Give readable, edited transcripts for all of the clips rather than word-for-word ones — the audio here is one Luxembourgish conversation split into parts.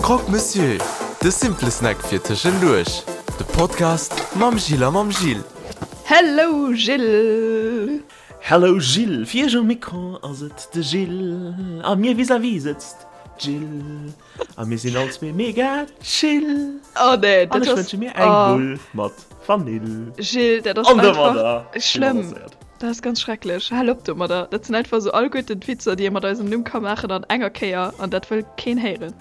Croque Monsieur, de simple Snack fir tëschenduerch. De Podcast mam Gilles a mam Gil. Hello Gilles! Hello Gilles, fir iech um Mikro ass et de Gilles a mir vis-à-vis sëtzt d'Jill a mir sinn all zwee mega chill. Oh nee, dat ass. An ech wënsche mir eng Bull mat Vanill. Gilles, dat ass einfach schlëmm. Dat ass ganz schrecklech. Hal op domadder. Dat sinn einfach esou alleguerten d'Witzer, déi ee mat eisem Numm ka maachen an enger Kéier an dat wëll keen héieren.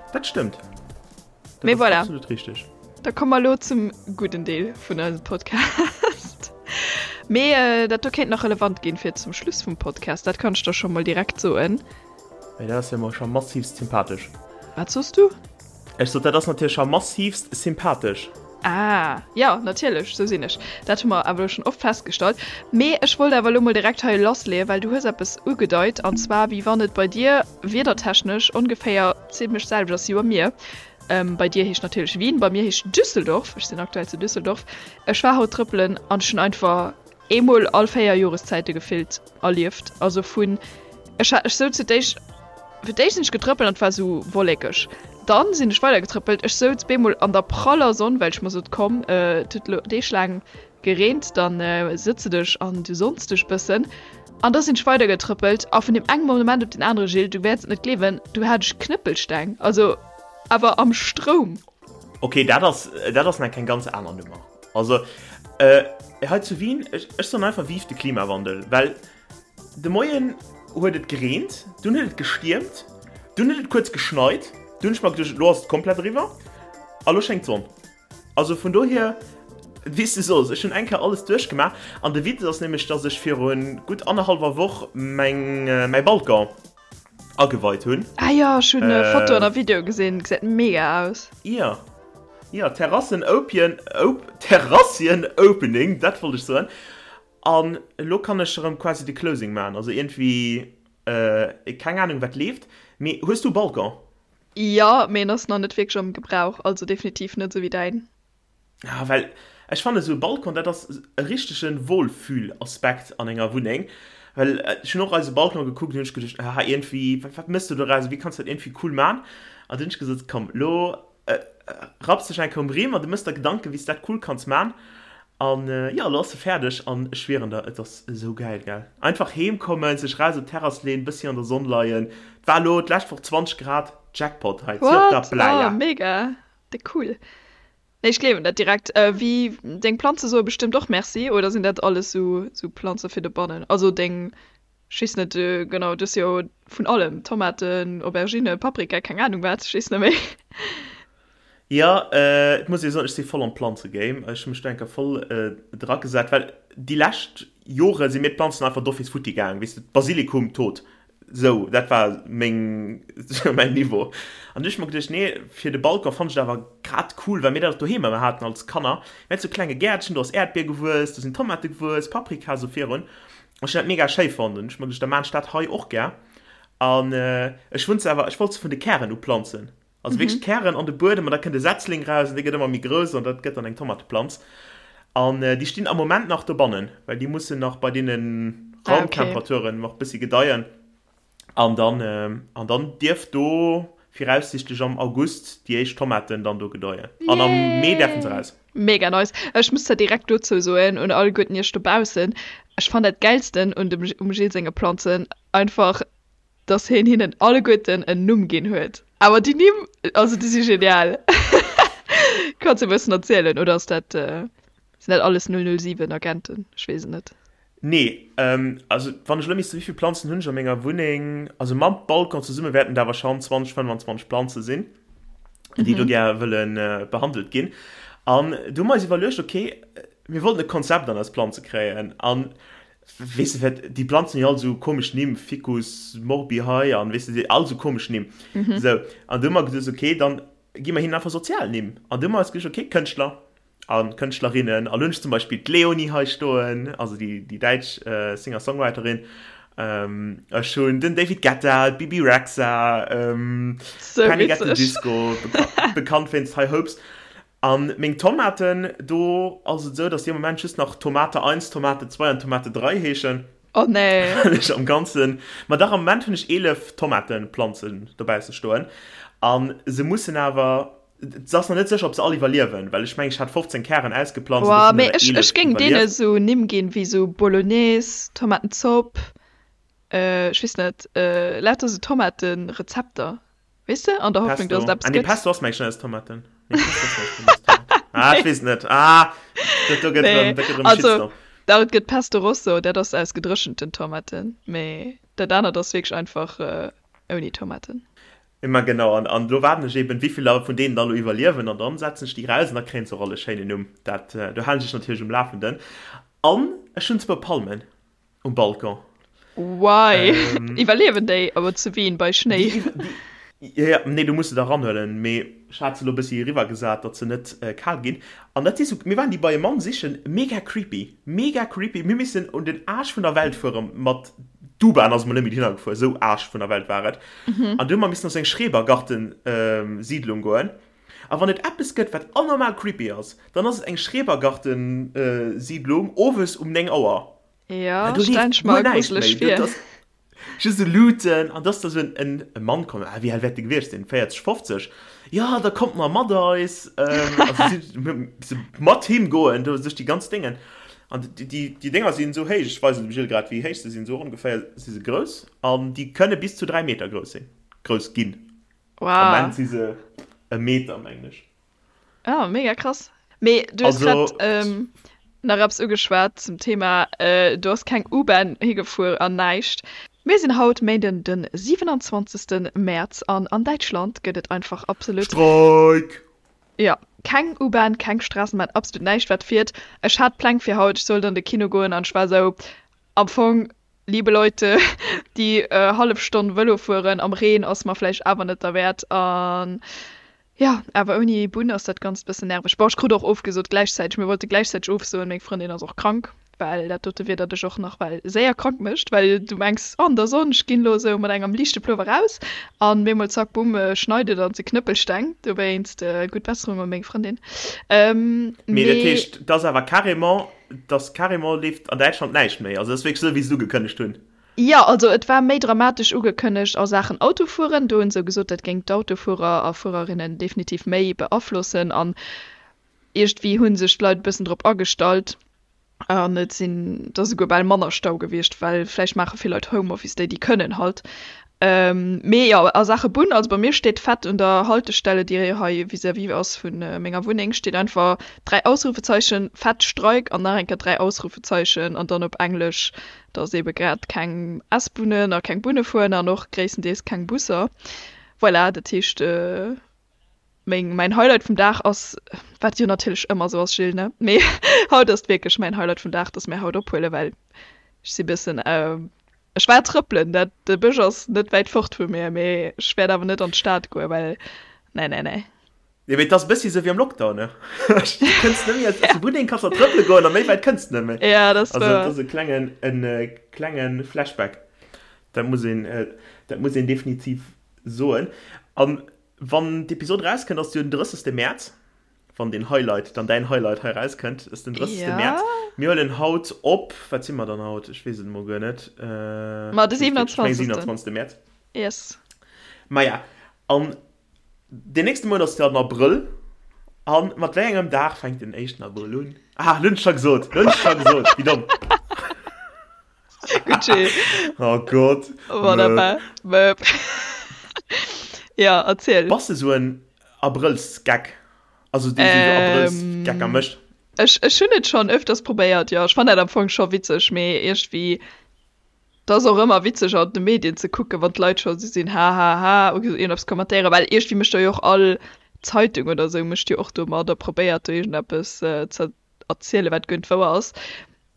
Dat stëmmt. Dat Mee voilà. Absolut richteg. Da komme mer elo zum gudden Deel vun eisem Podcast. Mee äh, dat do kéint nach relevant ginn fir zum Schluss vum Podcast. Dat kann ech der scho mol direkt soen. Mee dat ass jo mol scho massivst sympathesch. Wat soss du? Ech sot, dat ass natierlech scho massivst sympathesch. Ah, jo, natierlech, sou sinn ech. Dat hu mer awer elo schonn oft festgestallt. Mee ech wollt awer elo mol direkt hei lassleeën, well du hues eppes ugedeit, an zwar wéi wann et bei dir wiedertechnesch ongeféier zimlech d'selwecht ass wéi bei mir. Bei dir heescht natierlech Wien, bei mir heescht Düsseldorf. Ech sinn aktuell zu Düsseldorf. Ech war haut trëppelen an ech hunn einfach eemol all 4 Joreszäite gefillt erlieft. Also vun, ech hat, ech souz fir d'éischt, fir d'éischt sinn ech getrëppelt an et war sou wollekeg. Dann sinn ech weider getrëppelt, ech souz beemol an der praller Sonn, well ech mer sot, komm, et huet elo Deeg laang gereent, dann sëtz de dech an du sonns dech bëssen. An da sinn ech weider getrëppelt a vun deem engem Moment op den anere, Gilles, du wäerts et net gleewen, du hat ech Knëppelsteng, also awer am Stroum. Ok, dat ass, dat ass nach eng ganz aner Nummer. Also hei zu Wien, ech, ech soen einfach Vive de Klimawandel, well de Moien huet et gereent, dunn huet et gestiermt, dunn huet et kuerz geschneit, dunn hunn ech mer geduecht, elo ass et komplett eriwwer a lo schéngt d'Sonn. Also vun dohier, wéi s du soos, ech hunn eng Kéier alles duerchgemaach an de Witz ass nämlech, dass ech viru gutt annerhallwer Woch meng, mäi Balcon ageweit hunn. Ah jo, ech hunn Fotoen a Videoe gesinn, gesäit mega aus. Jo, jo, Terrassen opien, op, Terrassien opening, dat wollt ech soen. An elo kann ech erëm quasi de Closing maachen, also iergendwéi, keng Ahnung wat leeft. Mee hues du e Balcon? Jo, mee en ass nach net wierklech am Gebrauch, also definitiv net esou wéi däin. Ah, well ech fannen esou e Balcon, dat ass e richtege Wohlfühlaspekt an enger Wunneng. Well ech hunn och eise Balcon gekuckt an hunn ech geduecht, ah iergendwéi, wat wat mëss du doraus, wéi kanns du dat iergendwéi cool man? An dunn hunn ech gesot, komm elo rapps dech eng Kéier um Rimm an du mëss der Gedanken, wéi s du dat cool kanns man. An jo, elo ass se fäerdeg an ech schwieren der, et ass esou gäil, gell? Einfach heem kommen, sech raus op d'Terrass leen, bëssi an der Sonn leien. Et war elo d'lescht Woch 20 Grad, Jackpot hei, zu op der What? Playa. Oh mega, déck cool. Nee, ech gleewen dat direkt. Wéi, deng Planze soe bestëmmt och Merci, oder sinn dat alles sou sou Planze fir dobannen? Also deng, ech weess net genau, du hues jo vun allem, Tomaten, Aubergine, Paprika, keng Anung wat, ech weess net méi. Jo, et muss ee soen, ech si voll am Planzegame. Ech hu mech do eng Kéier voll dragesat, well déi lescht Jore si mir d'Planzen einfach d'office futti gaang, weess de, Basilikum tot, Sou, dat war meng, mäin Niveau. An du hu ech mer geduecht, nee, fir de Balcon fannt ech et awer grad cool, well mir dat och doheem ëmmer haten als Kanner. Mir haten sou klenge Gäertchen, do ass Äerdbier gewuess, do sinn Tomate gewuess, Paprika, sou virun. An ech hunn dat mega schéi fonnt. An hu ech mer geduecht, da maan ech dat hei och gär. An ech wunn se awer, ech wollt se vun de Kären u planzen. Also wierklech d'Kären an de Buedem an da kënnt e Setzling raus an dee gëtt ëmmer méi grouss an dat gëtt dann eng Tomateplanz. An déi stinn am Moment nach dobannen, well déi mussen nach bei deene Raumtemperaturen nach e bëssi gedeien. An dann, an dann dierft do viraussichtlech am August déi éischt Tomaten dann do gedeien. An am Mee däerfe se raus. Mega nice. Ech muss zwar direkt dozou soen, un alleguerten iech dobaussen, ech fannen dat gäilsten un dem, um Gilles senge Planzen einfach, dass hien hinnen alleguerten en Numm ginn huet. Awer déi Nimm, also déi si genial. Kanns e bëssen erzielen oder ass dat, sinn dat alles 007 Agenten? Ech weess et net. Nee, also wann ech elo misst, wéivill Planzen hunn ech a menger Wunneng? Also mam Balcon zesumme wäerten et awer schonn 20, 25 Planze sinn, déi do gär wëlle behandelt ginn. An du hu mer eis iwwerluecht, okay, mir wollten e Konzept an eis Planze kréien. An Weess de wat, déi Planzen hunn jo all esou komesch Nimm, Ficus morbi hei an weess de, all esou komesch Nimm. Esou, an du hu mer gesot, okay, dann gi mer hinnen einfach sozial Nimm. An du hu mer eis geduecht, okay, Kënschtler a Kënschtlerinnen, an elo hunn ech zum Beispill d'Leonie hei stoen, also déi, déi däitsch Singer-Songwriterin, ech hunn den David Guetta, d'Bibi Rexha, Panic at the Disco, bekannt wéinst High Hopes. An meng Tomaten, do ass et esou, dass déi am Moment just nach Tomate 1, Tomate 2 an Tomate 3 heeschen. Oh nee. Well ech am Ganzen, ma dach am Moment hunn ech 11 Tomatenplanzen dobausse stoen an se mussen awer, et ass nach net sécher ob se all iwwerliewen, well ech mengen ech hat 15 Kären ausgeplanzt an Boah, dovun mee hunn der ech, 11 ech géing deene iwwerlieft. sou Nimm ginn wéi sou Bolognese, Tomatenzopp, ech weess net, lauter sou Tomatenrezepter. Weess de, an der Hoffnung, Pesto. dass et eppes Ah, nee, gëtt. Pesto ass mengen ech net aus Tomaten. Nee, Pesto ass mengen ech net aus Tomaten. Ah, ech weess et net. Ah, dat do gëtt Nee, erëm, dat gëtt erëm e also, Shitstorm. dach, et gëtt Pesto Rosso, dat ass aus gedréchenten Tomaten, mee dat anert ass wierklech einfach ouni Tomaten. Ma genau, an, an elo waarden ech eben, wéi vill der vun deenen da elo iwwerliewen, an dann setzen ech déi raus an da kréien se och all e schéinen Numm. Dat, do halen ech dech natierlech um Lafenden. An ech hunn zwou Palmen. Um Balcon. Why? Ähm, Iwwerliewen déi awer zu Wien bei Schnéi? Déi, déi, ja, ja, nee, du muss se da ranhuelen, mee ech hat se lo bëssi eriwwer gesat, datt se net äh, kal ginn. An dat si sou, mir waren déi bei e Mann sichen, mega creepy, mega creepy. Mir missen un den Aarsch vun der Welt fuere mat, d'U-Bahn ass emol net méi dohinner gefuer, sou Aarsch vun der Welt war et. An du hu mer missen op sou eng Schrebergarten-Siedlung goen. A wann et eppes gëtt, wat anormal creepy ass, dann ass et eng Schrebergarten-Siedlung owes um 9 Auer. Ja, do stellen leeft ech mer guer näischt gruseleg méi. vir. Dat ass just esou Luuten an da ass da sou en e Mann komm, ah, wéi al wäert dee gewiescht sinn, 40, 50, jo, da kommt mar mat eis. Also si se mat him goen do duerch déi ganz Déngen. An déi, déi, déi Dénger sinn esou héich, ech weisen dem Gilles grad, wéi héich se sinn, esou ongeféier si se grouss an déi kënne bis zu 3 Meter grouss sinn, grouss ginn. Am Wow. Moment si se e Meter, mengen ech. Ah, mega krass. Mee du hues Also, grad ähm, nach eppes ugeschwat zum Thema, äh, do ass keng U-Bahn higefuer an näischt. Mir sinn haut Méinden den 27. Mäerz an an Däitschland gëtt et einfach absolut, Streik! jo, keng U-Bahn, keng Straßenbahn, absolut näischt wat fiert. Ech hat Pläng fir haut, ech sollt an de Kino goen an ech war esou, am Fong, liebe Leute, déi hallef Stonn Vëlo fueren am Reen ass mer vläicht awer net derwäert an Jo, awer ouni Bunn ass dat Ganzt bëssen nerveg. Bon, ech krut och ofgesot gläichzäiteg. Mir wollte gläichzäiteg ofsoen. Meng Frëndin ass och krank, well dat dote Wieder dech och nach well séier krank mécht, well du mengs, oh, an der Sonn, ech ginn elo esou mat engem liichte Plover raus an bemol zack, bumm, schneit et an et si Knëppelsteng. Dowéinst gutt Besserung u meng Frëndin. Mee dat Mee. heescht, et ass awer carrément, et ass carrément leeft an Däitschland näischt méi. Also et ass wierklech esou, wéi se et ugekënnegt hunn. Jo, also et war méi dramatesch ugekënnegt a Saachen Autofueren. Do hunn se gesot, dat géing d'Autofuerer a Fuererinnen definitiv méi beaflossen. An iergendwéi hu sech d'Leit e bëssen drop agestallt an et sinn da souguer bal manner Stau gewiescht, well vläicht maache vill Leit Homeoffice, déi déi kënnen halt. Mee jo, a Saache Bunn, also bei mir steet fett un der Haltestelle, déi hei vis-à-vis ass vu menger Wunneng, steet einfach 3 Ausrufezeichen, fett Streik an nach eng Kéier 3 Ausrufezeichen an dann op Englesch dass ebe grad keng S-Bunnen a keng Bunne fueren an och gréisstendeels keng Busser. Voilà, dat heescht, meng, mäin Highlight vum Dag ass, wat jo natierlech ëmmer esou ass, Gilles, ne? Mee haut ass et wierklech mäin Highlight vum Dag, dass mir haut ophuelen, well ech si bëssen, ech war trëppelen, dat, de Bësch ass net wäit fort vu mir, mee ech wäert awer net an d'Stad goen, well, nee, nee, nee. Jo, mee et ass e bëssi esou wéi am Lockdown, ne? Du kënns net méi aus der Wunneng, kanns nach trëppele goen a méi wäit kënns de net méi. Ja, dat ass Also, et wouer. ass e klengen, en klenge Flashback. Dat muss een, dat muss een definitiv soen. An wann d'Episod erauskënnt, ass jo den 30. Mäerz, wann deen Highlight, dann däin Highlight hei erauskënnt, ass den 30. Ja. Mäerz. Mir huelen haut op, wat si mer dann haut? Ech weess et emol guer net. Ma de Ech weess et wierklech, ech meng 27. 27. Mäerz. Yes. Maja, an Deen nächste Mount ass jo den Abrëll. A mat wéi engem Dag fänkt den éischten Abrëll un? Ah, lo hunn ech scho gesot, lo hunn ech scho gesot, wéi domm. Gutt, Gilles. Oh Gott. Wonnerbar. Möp. Ja, erziel. Bass de sou en Abrëllsgeck? Also dee sou Abrëllsgecker mécht? Ech, ech hunn et schonn öfters probéiert, jo. Ech fannen dat am Fong scho witzeg, mee iergendwéi Et ass och ëmmer witzeg an de Medien ze kucken, wann d'Leit scho sou sinn hahaha oder iergendeppes kommentéieren, well iergendwéi mécht do jo och all Zeitung oder sou mécht jo och do mat a probéiert do iergendeppes ze erzielen, wat guer net wouer ass.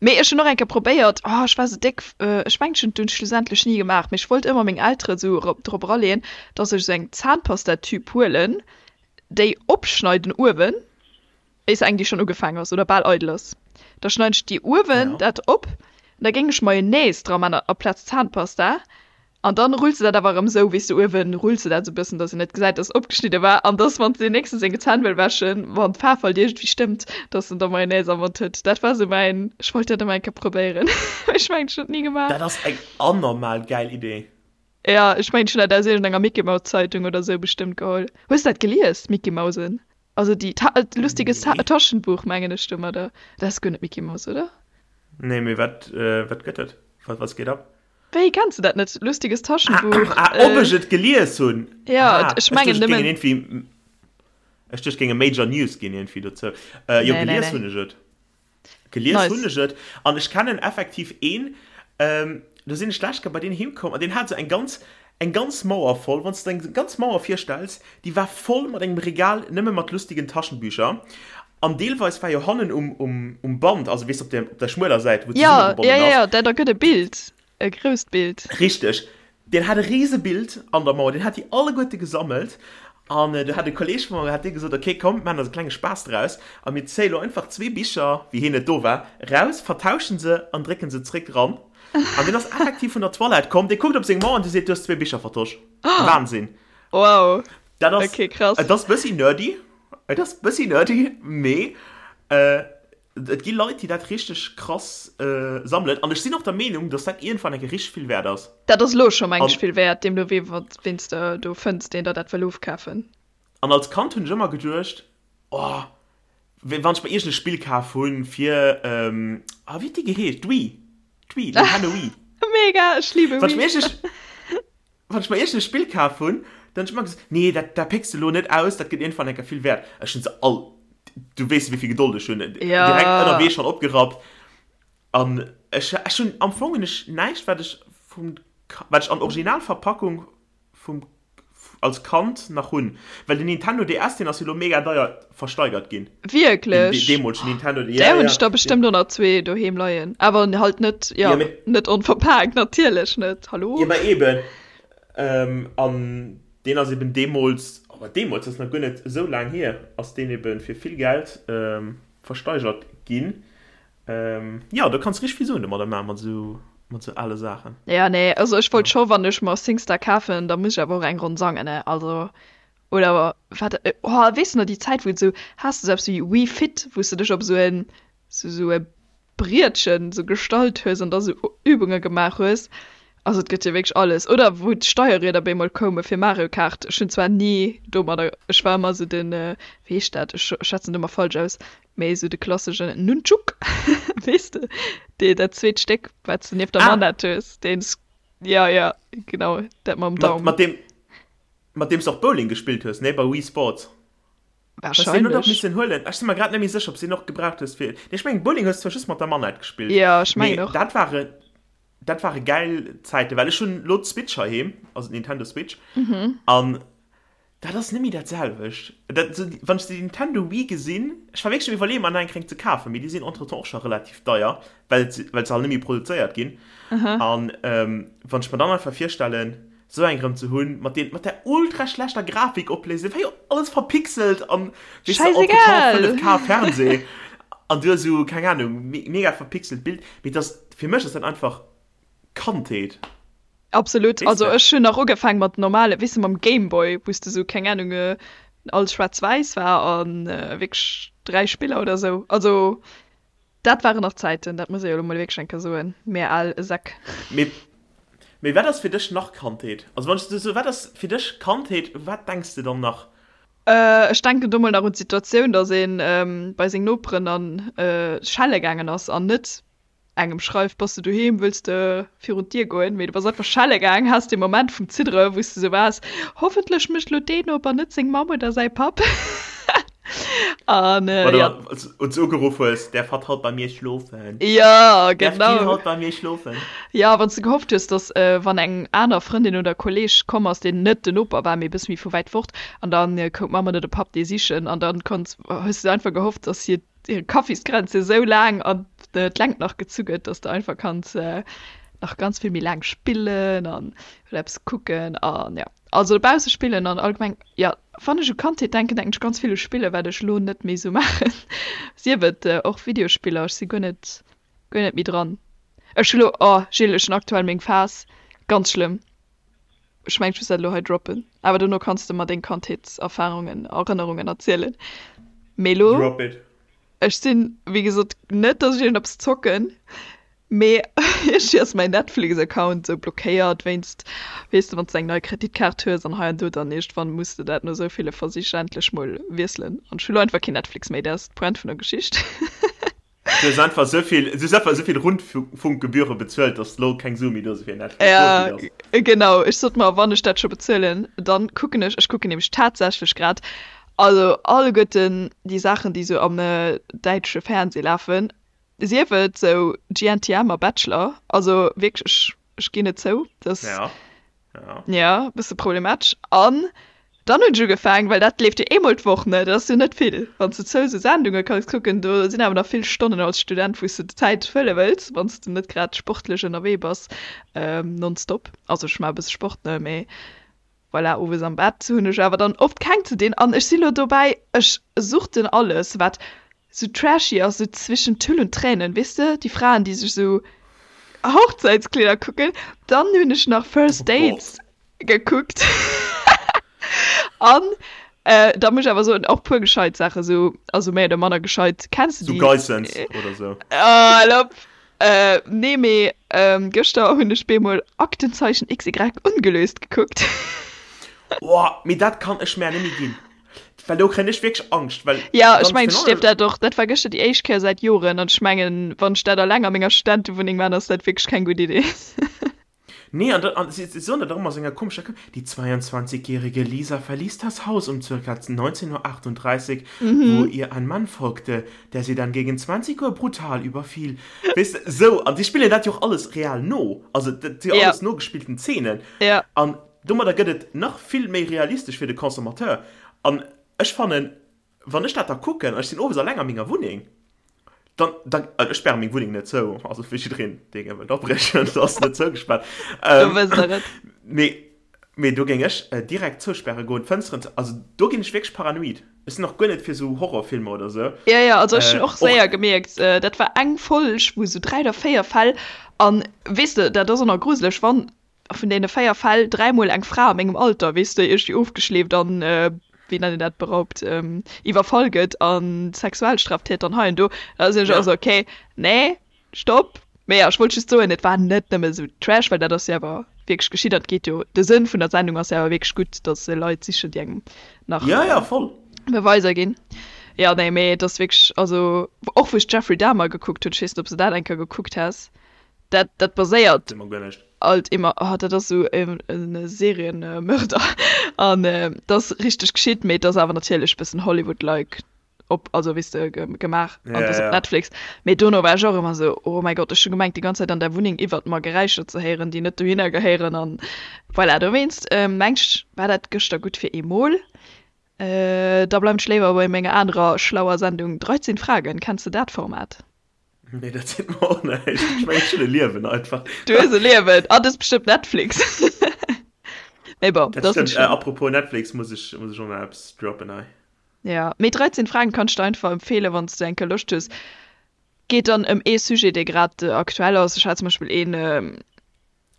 Mee ech hunn och eng Kéier probéiert, oh ech war sou déck, ech mengen ech hunn et dunn schlussendlech ni gemaach, mee ech wollt ëmmer meng Elteren sou drop eraleeën, dass ech sou eng Zahnpastatüb huelen, déi opschneiden uewen, Is eng déi schon ugefaang ass oder bal eidel ass, da schneiden ech déi uewen Ja. dat op an da géing ech Mayonnaise dra man aplaz Zahnpasta. An dann rulls de dat awer erëm esou, weess de, uewen rulls de dat esou bëssen, dass een net gesäit, dass et opgeschnidde war. An dass, wann s de deen nächste seng Zänn wëll wäschen, wann d'Faarf halt iergendwéi stëmmt, dass en da Mayonnaise am Mond huet. Dat war esou mäin, ech wollt dat ëmmer eng Kéier probéieren, mee ech mengen, ech hunn et ni gemaach. Dat ass eng anormal gäil Idee. Jo, ech mengen, ech hunn dat aus iergendenger Mickey-Mouse-Zeitung oder esou bestëmmt geholl. Hues de dat gelies, Mickey-Mausen? Also déi Ta Lustiges Ta Nee. Taschenbuch, mengen ech domadder. Dat ass guer net Mickey Mouse, oder? Nee, mee wat, wat gëtt et? Wat, wat geet ab? Wéi, kenns de dat net? Lustiges Taschenbuch. Ah, ob ech et gelies hunn? Ja, ech mengen nëmmen. Ech duecht, et géinge Major News ginn iergendwéi dozou. Jo, gelies hunn ech et. Gelies hunn ech et. An ech kennen effektiv een, do sinn ech d'lescht Kéier bei deen heem komm an deen hat esou eng ganz, eng ganz Mauer voll, wann s de der eng ganz Mauer virstells, déi war voll mat engem Regal nëmme mat lustigen Taschenbücher. An deelweis war jo hannen um, um, um Band, also weess op der, op der schmueler Säit, wou zesummegebonnen ass. Ja, ja, ja, dat ergëtt e Bild, e grousst Bild. Richteg. Deen hat e rise Bild an der Mauer, deen hat déi alleguerte gesammelt. An do hat e Kolleeg vu mer, hat dee gesot, okay, komm, maachen eis e klenge Spaass draus a mir zéie lo einfach zwee Bicher, wéi hien net do war, raus, vertauschen se an drécken se zréck ran. An deen ass effektiv vun der Toilette komm, dee kuckt op seng Mauer an dee seet, du hues zwee Bicher vertosch. Wahnsinn. Wow. Dat ass, okay, krass. Et ass bëssi nerdy. Et ass bëssi nerdy, mee et gi Leit, déi dat richteg krass sammelen. An ech sinn och der Meenung, dass dat iergendwann eng Kéier richteg vill wäert ass. Dat ass elo scho mengen ech vill wäert, deemno wee ween s de do fënns, deen der dat wëll ofkafen. An als Kand hunn ech ëmmer geduecht, oh, wann ech mer iergend e Spill kaf hunn fir, ah, wéi huet déi geheescht? D'Wii, d'Wii, Nintendo Wii. Mega, ech liebe Wii. Wann ech mer iergend e. Wann ech mer iergend e Spill kaf hunn, dann hunn ech ëmmer gesot, nee, dat, dat pécks de elo net aus, dat gëtt iergendwann eng Kéier vill wäert. Ech hunn se all, du weess wéi vill Gedold ech hunn, direkt ënnerwee schonn opgerappt. An ech, ech hunn, am Fong hunn ech näischt, wat ech vum, wat ech an Originalverpackung vum, als Kand nach hunn. Well den Nintendo DS, deen ass jo elo mega deier versteigert ginn. Wierklech? Den deemolegen Nintendo, ja, ja. Där hunn ech der bestëmmt och nach zwee doheem leien. Awer halt net, jo, net onverpaakt, natierlech net, hallo? Jo, ma eben. An deen ass eben deemools, oh, deemools, dat ass nach guer net esou laang hier, ass deen eben fir vill Geld versteigert ginn. Jo, do kanns de richteg vill Suen domadder maachen, mat esou, mat esou ale Saachen. Jo, nee, also ech wollt scho, wann ech mer Singstar kafen, da muss ech awer och eng Ronn sangen, ne, also. Oder wat, oh, weess de nach déi Zäit, wou et esou, has de esou eppes wéi Wii Fit, wou s de dech op esou en, esou e Brietchen esou gestallt hues an da sou Übunge gemaach hues. Also et gëtt jo wierklech alles. Oder wou d'Steierrieder bemol koume fir Mario Kart. Ech hunn zwar ni domadder, ech war ëmmer esou den, wéi heescht dat, ech schwätzen et ëmmer falsch aus, mee esou de klasseschen Nunchuk, weess de, dee dat zweet Stéck, wat s de nieft der Manette hues, deen, jo, jo, genau, dat mam Daum. Mat deem, mat deem s de och Bowling gespillt hues, nee, bei Wii Sports. Hues de deen och missen huelen? Ech si mer grad net méi sécher, ob s de deen och gebraucht hues fir, nee, ech mengen Bowling hues de zwar just mat der Manette gespillt, Jo, ech mengen och. mee dat ware, dat ware gäil Zäiten, well ech hunn elo d'Switch heiheem, also d'Nintendo Switch, an dat ass net méi dat selwecht. Dat, wann ech déi Nintendo Wii gesinn, ech war wierklech um Iwwerleeën, mer nach eng keng ze kafen, mee déi sinn entretemps och scho relativ deier, well se, well se halt net méi produzéiert ginn. An wann ech mer dann einfach virstellen, Sou eng rem ze hunn, mat deen, mat där ultra schlechter Grafikopléisung, war jo alles verpixelt an weess de, Scheißegal! 5K Fernseh an du hues sou, keng Ahnung, mega verpixelt Bild, mee dass, fir mech ass dat einfach Kandheet. Absolut, Weess also de? ech hunn nach ugefaang mat normale, weess de, mam Gameboy, wou s de sou, keng Ahnung, alles schwaarz-wäiss war an wierklech 3 Spiller oder sou, also Dat waren nach Zäiten, dat muss ee jo elo mol wierklech eng Kéier soen, mir al Säck. Mee, mee wat ass fir dech nach Kandheet? Also wann ech esou soen, wat ass fir dech Kandheet, u wat denks de dann nach? Ech denken do mol nach un d'Situatioun, datt ee bei seng Noperen an schelle gaangen ass an net engem schreift, Bass de doheem, wëlls de virun d'Dier goen? Mee du bass einfach schelle gaang, has dee Moment vum Ziddere wou s de esou waars, Hoffentlech mécht elo deen Noper net seng Mamm oder säi Papp. An äh, ja. Oder du ugeruff hues, Därf hatt haut bei mir schlofen? Ja, genau. Därf die haut bei mir schlofen? Ja, wann s du gehofft hues, dass äh, wann eng aner Frëndin oder Kolleg komm ass, deen net den Noper war, mee e bësse méi vu wäit fort, an dann äh, koum d'Mamm oder de Papp dee sichen, an dann konns, hues du einfach gehofft, dass hir hir Kaffiskränze esou laang an d'Längt nach gezu gëtt, dass de einfach kanns äh, nach ganz vill méi laang spillen an oder eppes kucken an ja. Also dobausse spillen an allgemeng, jo, wann ech u Kandheet denken, denken ech ganz vill u Spillen, wat ech elo net méi sou maachen. Sief et och Videospiller, ech si guer net, guer net méi dran. Ech hu lo, oh Gilles, ech hunn aktuell meng Phas, ganz schlëmm. Ech mengen, ech muss dat elo hei droppen. Awer dono kanns de mer deng Kandheetserfarungen, Erënnerungen erzielen. Mee elo. Drop it. Ech sinn, wéi gesot, net, dass ech iergendeppes zocken, mee iergendwéi ass mäin Netflix-Account esou blockéiert wéinst, weess de, wann s de eng nei Kreditkaart hues an hei an do, dann iergendwann muss de dat no esou ville Versich endlech mol wiesselen. An ech hu lo einfach keen Netflix méi, dat ass d'Pointe vun der Geschicht. Du hues einfach esou vill, du hues einfach esou vill Rundfunkgebühre bezuelt, dass lo keng Sue méi do si fir Netflix. Ja, genau. Ech sot mer, wann ech dat scho bezuelen, dann kucken ech, ech kucken nämlech tatsächlech grad, also alleguerten déi Saachen, déi sou am däitsche Fernseh lafen, sief et sou GNTM a Bachelor, also wierklech, ech, ech ginn et zou, dass. Ja. Ja. Ja, bësse problematesch. An dann hunn ech ugefaangen, well dat leeft jo eemol d'Woch, ne, dat ass jo net vill, wann s de zou sou Sendunge kanns kucken, do sinn awer nach vill Stonnen als Student, wou s de d'Zäit fëlle wëlls, wann s de net grad sportlech ënnerwee bass, nonstop. Also ech maache e bësse Sport, ne, mee voilà, owes am Bett hunn ech awer dann oft keng ze dinn. An ech si lo dobäi, ech suchten alles, wat sou trashy ass, sou zwischen Tüll und Tränen, weess de, déi Fraen, déi sech sou Hochzäitskleeder kucken. Dann hunn ech nach First Dates gekuckt an da muss ech awer soen, och puer gescheit Saachen, sou, also méi oder manner gescheit. Kenns de déi? Sou Geissens oder sou? Hal op! Nee, mee gëschter hunn ech bemol Aktenzeichen XY ungelöst gekuckt. Oh, mee dat kann ech mär net méi ginn. Well do kréien ech wierklech Angscht, well Ja, ech mengen, ech dierf dat och. Dat war gëschter déi éischt Kéier säit Joren an ech mengen, wann ech dat alleng a menger Studentewunneng man, ass dat wierklech keng gutt Idee. Nee, an, an si, si soen dat och ëmmer esou enger komescher Këmm, Die 22-jährige Lisa verließ das Haus um circa 19.38 Uhr, wo ihr ein Mann folgte, der sie dann gegen 20 Uhr brutal überfiel. Weess de, esou, an si spillen dat jo och alles real no, also dat si jo alles nogespillten Zeenen. An Domadder gëtt et nach vill méi realistesch fir de Consommateur. An ech fannen, wann ech dat da kucken, an ech sinn owes alleng a menger Wunneng, dann, dann, also ech späre meng Wunneng net zou, also fir jiddereen, dee gär wëllt abriechen, se ass net zougespaart. Do wësst der et. Mee, mee do géing ech direkt zouspäre goen, d'Fënsteren zou, also do ginn ech wierklech paranoid. Ech sinn och guer net fir esou Horrorfilmer oder esou. Jo, jo, also ech hunn och séier gemierkt, dat war eng Folg, wou esou 3 oder 4 Fäll, an weess de, dat ass och nach gruseleg, wann vun deene 4 Fäll dräimol eng Fra a mengem Alter, weess de, iergendwéi ofgeschleeft an, wéi nennt een dat, beraubt, iwwerfall gëtt a Sexualstraftäter an hei an do, da sinn ech och esou, okay, nee, stopp. Mee jo, ech wollt just soen, et war net nëmme esou Trash, well dat ass jo awer wierklech geschitt an et geet jo, de Sënn vun der Sendung ass jo awer wierklech gutt, datt se Leit sichen, déi engem nach Ja, ja, voll. Beweiser ginn. Jo, nee, mee et ass wierklech, also och wou ech Jeffrey Dahmer gekuckt hunn, ech weess net, ob s de dat eng Kéier gekuckt has, dat, dat baséiert. Seet mer guer näischt. Alt immer, oh dat ass sou e Serienmörder an dat ass richteg geschitt, mee et ass awer natierlech bëssen Hollywood-like op, also weess de, gemaach an et ass op Netflix. Mee dono war ech och ëmmer sou, oh mäi Gott, ech hu gemengt déi ganz Zäit an der Wunneng iwwert mer Geräischer ze héieren, déi net dohinner gehéieren an voilà. Dowéinst mengt ech war dat gëschter gutt fir eemol. Da bleiwen ech léiwer bei menger anerer schlauer Sendung 13 Fragen. Kenns de dat Format? Nee, dat seet mer och näischt. Ech mengen, ech hunn e Liewen einfach. Du hues e Liewen. Ah, du hues bestëmmt Netflix. Mee bon, dat ass net schlëmm. Apropos Netflix, muss ech, muss ech och nach eppes droppen hei. Ja, mee 13 Fragen kann ech der einfach empfeelen, wann s du eng Kéier Loscht hues. Geet dann ëm ee Sujet, dee grad aktuell ass. Ech hat zum Beispill een,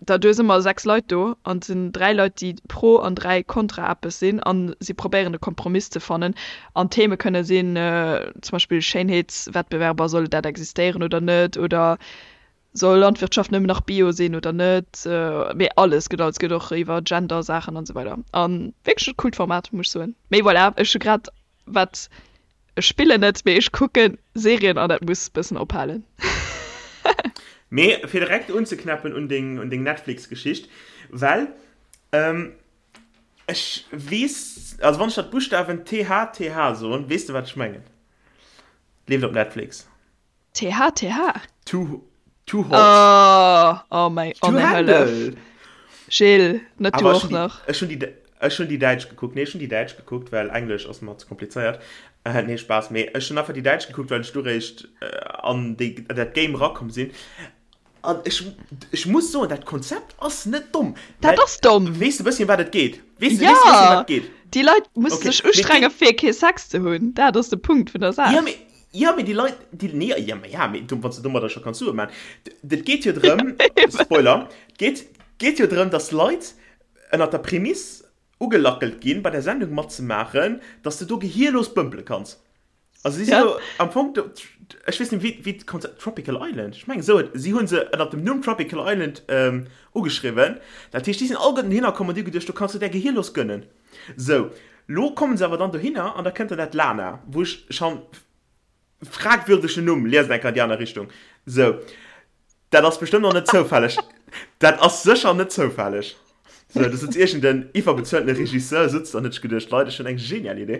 Da du hues ëmmer 6 Leit do an et sinn 3 Leit déi pro an 3 kontra eppes sinn an si probéieren e Kompromiss ze fannen an d'Theme kënne sinn zum Beispill Schéinheetswettbewerber, soll dat existéieren oder net oder soll Landwirtschaft nëmmen nach Bio sinn oder net, mee alles gëtt alles gëtt och iwwer Gender Saachen an esou weider an wierklech e coolt Format muss ech soen. Mee voilà, ech hu grad wat Ech spillen net, mee ech kucken Serien an dat muss bëssen ophalen. Mee fir direkt unzeknäppen un deng, un deng Netflix-Geschicht, well ech weess, also wann ech der d'Buschtawen THTH soen, weess de wat ech mengen? Leeft op Netflix. THTH? Too, too hot. Oh, oh mein, oh To mein handle. Hëllef. Gilles, net du Awer ech och hunn déi, nach. ech hunn déi, ech hunn déi däitsch gekuckt. Nee, ech hunn déi däitsch gekuckt, well Englesch ass mer ze komplizéiert. Äh, nee, Spaass. Mee ech hunn einfach déi däitsch gekuckt, well ech du réischt an déi, an dat Game erakomm sinn. An ech, ech muss soen, dat Konzept ass net domm. Dat Well, ass domm. weess de bësschen, wat et geet? Weess de, weess de bësschen, Ja! wat et geet? Déi Leit musse Okay, sech mee et ustrenge geet. fir kee Sex ze hunn. Dat ass de Punkt vun der Ja, Saach. mee Jo, mee déi Leit, déi, nee, ja, ma ja, mee du, wann s de domadder scho kanns Sue man. Et geet jo drëm, Spoiler, et geet, geet jo drëm, dass Leit. Ënnert der Prämiss ugelackelt ginn, bei der Sendung matzemaachen, dass de do gehierlos bëmpele kanns. Also si si jo am Fong do, ech weess net wéi wéi d'Konzept, Tropical Island, ech mengen esou huet, si hu se ënnert dem Numm Tropical Island ugeschriwwen. Dat heescht, déi sinn alleguerten dohinner komm an déi hu geduecht, do kanns du där gehierlos gönnen. Sou, lo kommen se awer dann dohinner an da kënnt dann dat Lana, wou ech schonn Fragwürdegen Numm, liest eng Kéier an déi aner Richtung. Sou, dat ass bestëmmt och net zoufälleg. Dat ass sécher net zoufälleg. Sou, do sëtzt iergend en iwwerbezueltene Regisseur sëtzt an huet sech geduecht, Leit, ech hunn eng genial Idee.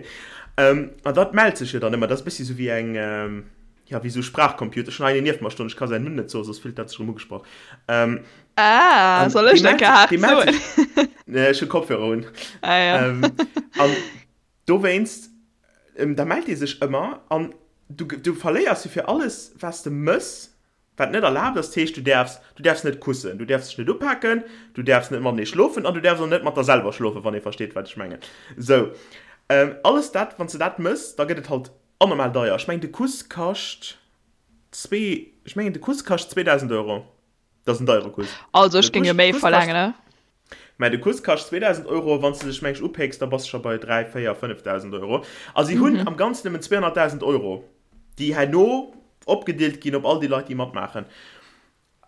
An dat mellt sech jo dann ëmmer. Dat ass e bëssi sou wéi eng, jo, wéi sou Sprachcomputer. Ech hunn hei een nieft mer stoen, ech ka säin Numm net soen, soss fillt dat sech erëm ugesprach. Ah, soll ech dat gehaart soen? Nee, ech hu Kopfhörer un. Ah, ja. An Dowéinst, da mellt ee sech ëmmer an du, du verléiers jo fir alles, wat s de mëss, wat net erlaabt ass. Dat heescht, du däerfs, du däerfs net kussen, du däerfs dech net upaken, du däerfs net matenee schlofen an du däerfs och net mat der selwer schlofen, wann ee versteet, wat ech mengen. Sou, alles dat, wann s de dat mëss, da gëtt et halt anormal deier. Ech mengen, de Kuss kascht zwee, ech mengen, de Kuss kascht 2.000 Euro. Dat ass en deiere Kuss. Also ech géing jo méi verlaangen, ne? Mä de Kuss kascht 2.000 Euro, wann s de dech meng ech upécks, da bass de scho bei 3, 4, 5.000 Euro. A si hunn am Ganzen nëmmen 200.000 Euro, déi herno opgedeelt ginn op all déi Leit, déi matmaachen.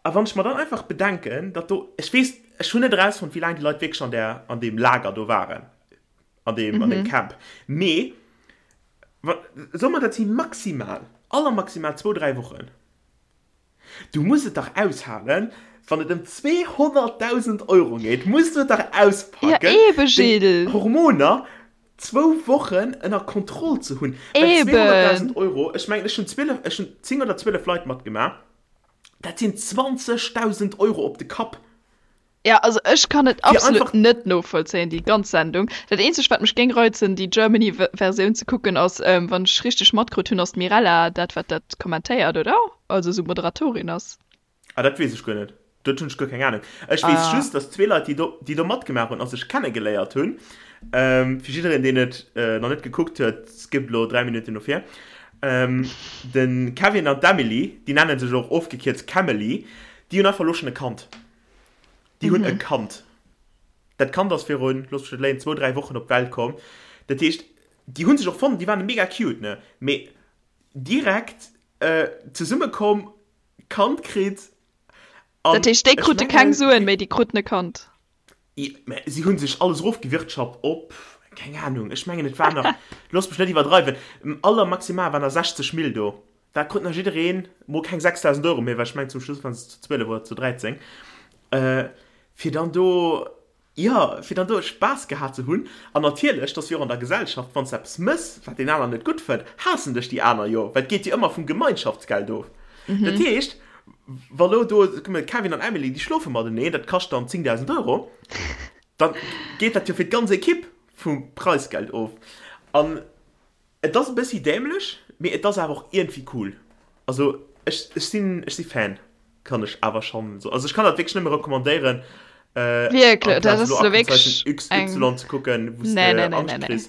A wann ech mer dann einfach bedenken, datt do, ech weess, ech hunn net erausfonnt, wéi laang déi Leit wierklech an där, an deem Lager do waren, an deem, an deem Camp, mee wa, soe mer, dat si maximal, allermaximal zwou, dräi Wochen. Du muss et dach aushalen, wann et ëm 200.000 Euro geet, muss du et dach auspacken, ja, eben, déi Hormoner zwou Wochen ënner Kontroll ze hunn. Eben. Well 200.000 Euro, ech mengen, ech hunn 12, ech hunn 10 oder 12 Leit matgemaach, dat sinn 20.000 Euro op de Kapp. Ja, also ech kann et absolut net novollzéien, déi ganz Sendung. Dat eenzegt wat mech géing reizen déi Germany Versioun ze kucken ass, wann ech richteg matkrut hunn, ass d'Mirella dat wat dat kommentéiert, oder? Also esou Moderatorin ass. Ah dat weess ech guer net, dat hunn ech guer keng Ahnung. Ech weess just, dass zwee Leit déi do déi do matgemaach hunn a sech kennegeléiert hunn, fir jiddereen deen et nach net gekuckt huet, skippt elo 3 Minutten no vir, de Kevin an d'Emily, déi nennen sech och ofgekierzt Kemely, déi hunn einfach elo schonn e Kand. Déi hunn e Kand. Dat Kand ass virun, looss mech net léien, zwou, dräi Wochen op d'Welt komm. Dat heescht, déi hu sech och fonnt, déi waren mega cute, ne? Mee direkt zesumme komm, Kand kritt an. Dat heescht, déi krute keng Suen, mee déi kruten e Kand? Mä si hu sech alles erofgewirtschaft op, keng Anung, ech mengen et war nach, looss mech net iwwerdreiwen, allermaximal waren der 60 Mille do. Dat krut nach jiddereen, mol keng 6.000 Euro méi, well ech mengen zum Schluss waren se zu 12 oder zu 13, fir dann do, jo, fir dann do Spaass gehat ze hunn. An natierlech, dat ass jo och an der Gesellschaft, wann s de eppes mëss, wat deen aneren net gutt fënnt, haassen dech déi aner jo, well et geet jo ëmmer vum Gemeinschaftsgeld of. Dat heescht, wa lo do, kuck mol, Kevin an Emily, déi schlofe mateneen, dat kascht dann 10.000 Euro, da geet dat jo fir d'ganz Ekipp vum Preisgeld of. An Et ass e bëssi dämlech, mee et ass awer och iergendwéi cool. Also ech ech sinn ech si Fan, kann ech awer schonn soen. Also ech kann dat wierklech nëmme recommandéieren, Wierklech, dat amplaz ass elo elo wierklech Aktenzeichen eng XY ze kucken, wou s Nee, de nee, nee, Angscht nee, nee. kriss.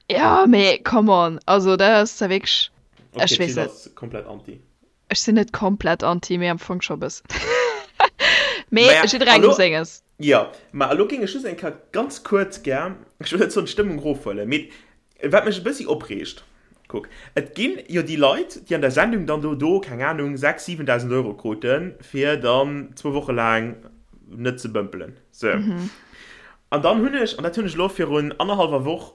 Jo, mee come on, also dat ass da wierklech, Okay, ech weess d'Jill net. ass komplett anti. Ech sinn net komplett anti, mee am Fong scho e bëssen. Mee Maja, jidderengem elo, senges. jo, ma elo géing ech just eng Kéier ganz kuerz gär, ech wëll net soen d'Stëmmung erofhuelen, mee wat mech e bëssi opreegt, kuck, et ginn jo déi Leit, déi an der Sendung dann do, do, keng Anung, 6, 7.000 Euro kruten, fir dann zwou Woche laang net ze bëmpelen, sou. An dann hunn ech, an dat hunn ech elo virun annerhallwer Woch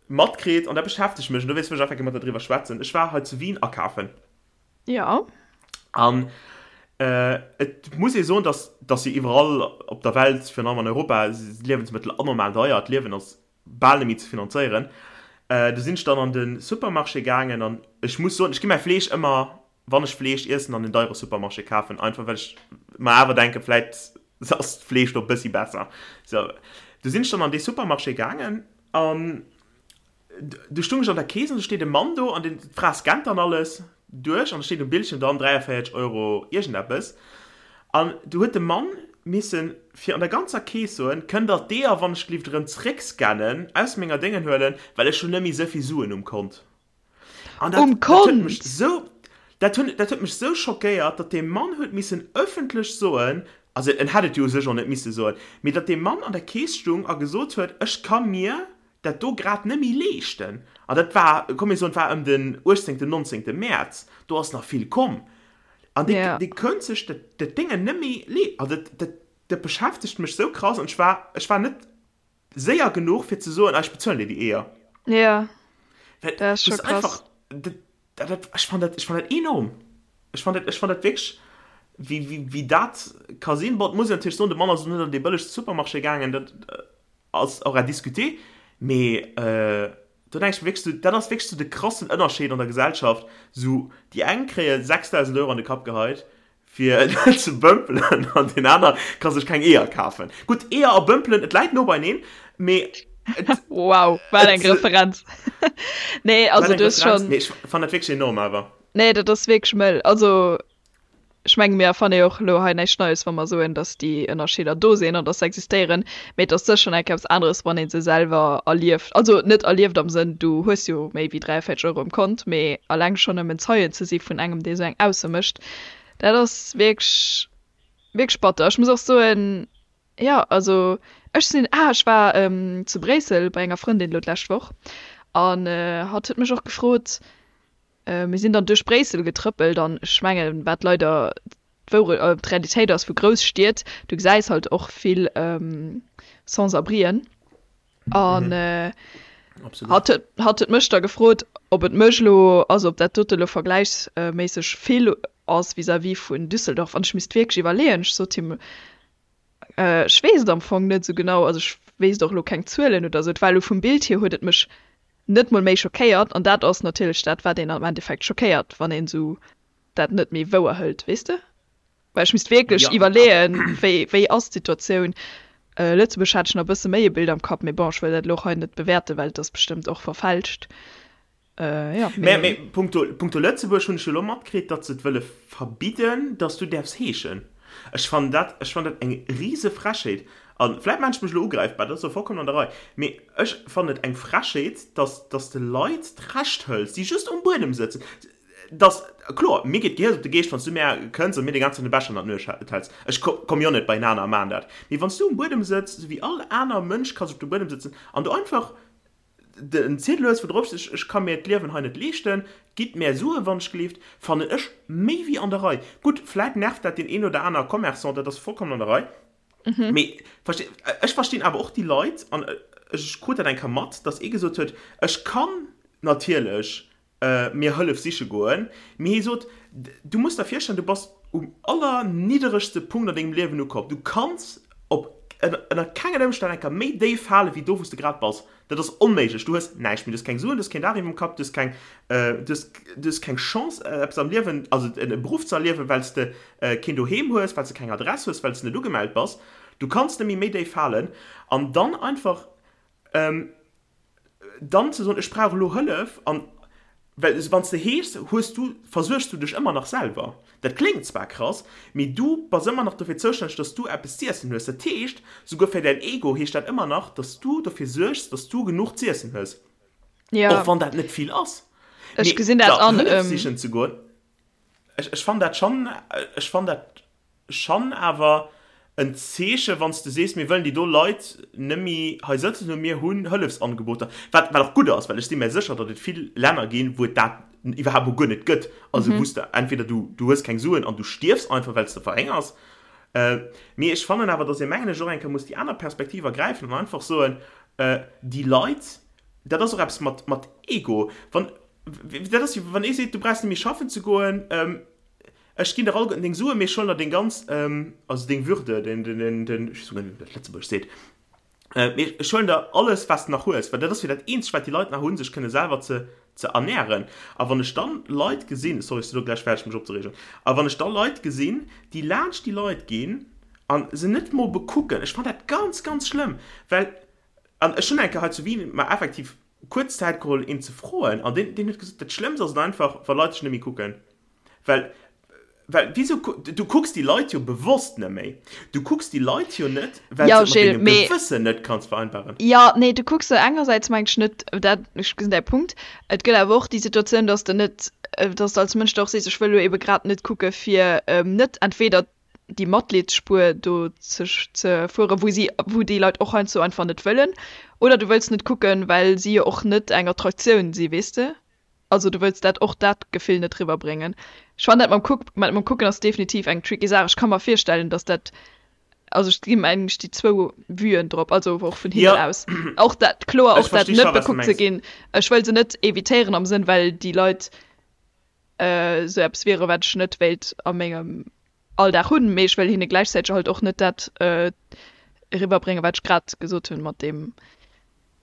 matkritt, an dat beschäftegt mech, an dowéinst wëll ech einfach gär mat der driwwer schwätzen, ech war hei zu Wien akafen. Ja. An et muss ee soen, dass, dass jo iwwerall op der Welt, virun allem an Europa, si Liewensmëttel anormal deier, d'Liewen ass bal net méi ze finanzéieren. Du sinn ech dann an de Supermarché gaangen an ech muss soen, ech gi mäi Fleesch ëmmer, wann ech Fleesch iessen, an den deiere Supermarché kafen, einfach well ech mer awer denken, vläit ass d'Fleesch do e bëssi besser. Sou, du sinn ech dann an dee Supermarché gaangen an Du stung ech an der Kees an do steet e Mann do an den d'Fra scannt dann alles duerch an da steet um Bildschirm dann 43 Euro iergendeppes an du huet de Mann missen fir an der ganzer Kees soen, kënnt der d'Eeër wann ech gelift erëm zréck scannen, aus menger Déngen huelen, well ech hunn net méi esou vill Suen um Kont. An dat, Um dat huet mech Kont! esou, dat hunn, dat huet mech esou schockéiert, datt dee Mann huet missen ëffentlech soen. Also en hätt et jo u sech och net misse soen, mee datt dee Mann an der Keess stung a gesot huet, ech ka mir dat do grad net méi leeschten, an dat war, komm mir soen, et war ëm den 18., 19. Mäerz, do ass nach vill komm, an dee, dee könnt sech dat, dat Déngen net méi lee, also dat, dat, dat beschäftegt mech sou krass an ech war, ech war net séier genuch fir ze soen, ah ech bezuelen dir déi Eeër. Ja, dat ass scho krass. Dat, dat, ech fann dat, ech fann dat enorm. Ech fann dat, ech fann dat wierklech, wéi, wéi, wéi dat ka sinn. Bon, et muss een natierlech soen, de Mann ass och net an dee bëllegste Supermarché gaangen, dat ass och à discuter, mee do denke ech mir wierklech sou, dat ass wierklech sou de krassen Ënnerscheed an der Gesellschaft, sou déi eng kréie 6.000 Euro an de Kapp geheit fir net ze bëmpelen an deen aner ka sech keng Eeër kafen. Gutt, Eeër a bëmpelen, et läit no beineen, mee et. Wow, wat eng Referenz! Nee, also du hues schonn. Mee ech fannen dat wierklech enorm awer. Nee, dat ass wierklech mëll. Also ech menge mir erfanne jo och elo hei näischt Neies, wa mer soen, datt déi Ënnerscheeder do sinn an datt se existéieren. Mee et ass sécher nach eppes aneres, wann ee se selwer erlieft. Also net erlieft am Sënn, du hues jo méi wéi 43 Euro um Kont, mee eleng schonn nëmmen Zeien ze si vun engem, dee sou eng Ausso mécht, Dat ass wierklech, wierklech batter. Ech muss och soen, jo, also ech sinn, ah, ech war zu Bréissel bei enger Frëndin elo d'lescht Woch an hatt huet mech och gefrot, mir sinn dann duerch Bréissel getrëppelt an ech mengen, wat leider d'Wourecht, d'Realitéit ass vu Grousstied, du gesäis halt och vill Sans-abrien. An hatt huet, hatt huet mech da gefrot, ob et mech elo, also ob dat dote elo vergläichsméisseg vill ass vis-à-vis vun Düsseldorf. An ech misst wierklech iwwerleeën. Ech sot him, ech weess et am Fong net esou genau, also ech wéisst och elo keng Zuelen oder esou. Et war elo vum Bild hier huet et mech net mol méi schockéiert. An dat ass natierlech dat, wat een am Endeffekt schockéiert, wann een esou dat net méi wouer hëlt, weess de? Well ech misst wierklech iwwerleeën, wéi, wéi ass d'Situatioun. Lëtzebuerg hat ech nach e bësse méi e Bild am Kapp, mee bon, ech wëll dat elo och hei net bewäerten, well et ass bestëmmt och verfälscht. Jo, mee. Mee punkto, punkto Lëtzebuerg hunn ech jo elo matkritt, datt se et wëlle verbidden, datt s du däerfs heeschen. Ech fannen dat, ech fannen dat eng rise Frechheet. A vläit maachen ech mech elo ugräifbar, dat ass och vollkommen an der Rei, mee ech fannen et eng Frechheet, datt, datt s de Leit d'Recht hëls, déi just um Buedem sëtzen. Dass, kloer, mir geet d'Gehiers op de Geescht, wann s du mär kënns a mir deng ganz Zäit de Becher ënner d'Nues häls. Ech komm jo net beienaner a maan dat. Mee wann s du um Buedem sëtz, sou wéi all aner Mënsch ka sech op de Buedem sëtzen, an du einfach en Ziedel hues, wou drop steet, ech ka mir d'Liewen hei net leeschten, gitt mär Sue wann ech gleeft, fannen ech méi wéi an der Rei. Gutt, vläit nervt dat deen een oder aner Commerçant, dat ass vollkommen an der Rei. Mee ech verstinn awer och déi Leit, an ech krut dat eng Kéier mat, dass ee gesot huet, ech kann natierlech mir Hëllef siche goen, mee hie sot, Du muss der virstellen, du bass um allernidderegste Punkt an dengem Liewen ukomm. Du kanns op ënner kengen Ëmstänn eng Kéier méi déif fale wéi do, wou s de grad bass. Dat ass onméiglech. Du hues näischt méi. Du hues keng Suen, du hues keen Daach iwwerm Kapp, du hues keng, du hues, du hues keng Chance, eppes am Liewen, also e Beruff ze erliewen, well s de keen Doheem hues, well s de keng Adress hues, well s de net ugemellt bass. Du kanns net méi méi déif falen. An dann einfach Dann ze soen, ech brauch elo Hëllef, an well wann s de heeschs, hues du, versuergs du dech ëmmer nach selwer. Dat kléngt zwar krass, mee du bass ëmmer nach dofir zoustänneg, dass du eppes z'iessen hues. Dat heescht, souguer fir däin Ego heescht dat ëmmer nach, dass du dofir suergs, dass du genuch z'iessen hues, och wann dat net vill ass. Ech gesinn dat an. Hëllef sichen ze goen, ech, ech fannen dat schonn, ech fannen dat Schan awer en Zeeche wann s de sees, mir wëllen déi do Leit nëmmi hei sëtzen hunn, mir hunn Hëllefsangeboter, wat wat och gutt ass, well ech si mär sécher, datt et vill Länner ginn, wou et dat iwwerhaapt mol guer net gëtt, also wou s de entweder du du hues keng Suen an du stierfs einfach, well s de verhéngers. Mee ech fannen awer, datt ee mengen ech och eng Kéier muss déi aner Perspektiv ergräifen an einfach soen, déi Leit, dat ass och eppes mat mat Ego, wann dat ass wéi wann ee seet, du brauchs net méi schaffen ze goen, Ech ginn der alleguerten deng Suen, mee ech huelen der deng ganz, also deng Würde, den, den, den, den, ech weess guer net, wéi dat op Lëtzebuergesch seet, mee ech huelen der alles, wat s de nach hues, well dat ass jo dat eenzegt, wat déi Leit nach hunn, sech kënne selwer ze, ze ernären. A wann ech dann Leit gesinn, sorry, ech sinn elo gläich fäerdeg, mech opzereegen, a wann ech da Leit gesinn, déi laanscht déi Leit ginn a se net mol bekucken, ech fannen dat ganz, ganz schlëmm, well, an ech hunn eng Kéier hei zu Wien mer effektiv kuerz Zäit geholl, een ze froen, an deen, deen huet gesot, dat Schlëmmst ass et einfach, wa Leit dech net méi kucken. Well, well wieso, du kucks déi Leit jo bewosst net méi. Du kucks déi Leit jo net, well Ja, s de et mat Gilles, dengem mee Gewëssen net kanns vereinbaren. Jo, nee, du kucks se engersäits mengt ech net, dat, ech gesinn däi Punkt. Et gëtt awer och déi Situatioun, dass de net, dass de als Mënsch da och sees, ech wëll elo ebe grad net kucke fir net entweder. déi Matleedsspuer do ze ze fueren, wou si wou déi Leit och heiansdo einfach net wëllen. Oder du wëlls net kucken, well si jo och net eng Attraktioun si, weess de? Also du wëlls dat och dat Gefill net riwwerbréngen. Ech fannen dat mam Kuck mat mam Kucken ass definitiv eng tricky Saach. Ech ka mer virstellen, datt dat also ech gi mengen ech déi zwou Vuen drop, also och vun hinnen Ja. aus. Och dat kloer Ech och dat versti scho net wat s de bekuckt ze mengs. ginn. Ech wëll se net evitéieren am Sënn well déi Leit esou eppes wiere wat ech net wéilt a mengem Alldag hunn, mee ech wëll hinne gläichzäiteg halt och net dat eriwwerbréngen, wat ech grad gesot hunn mat deem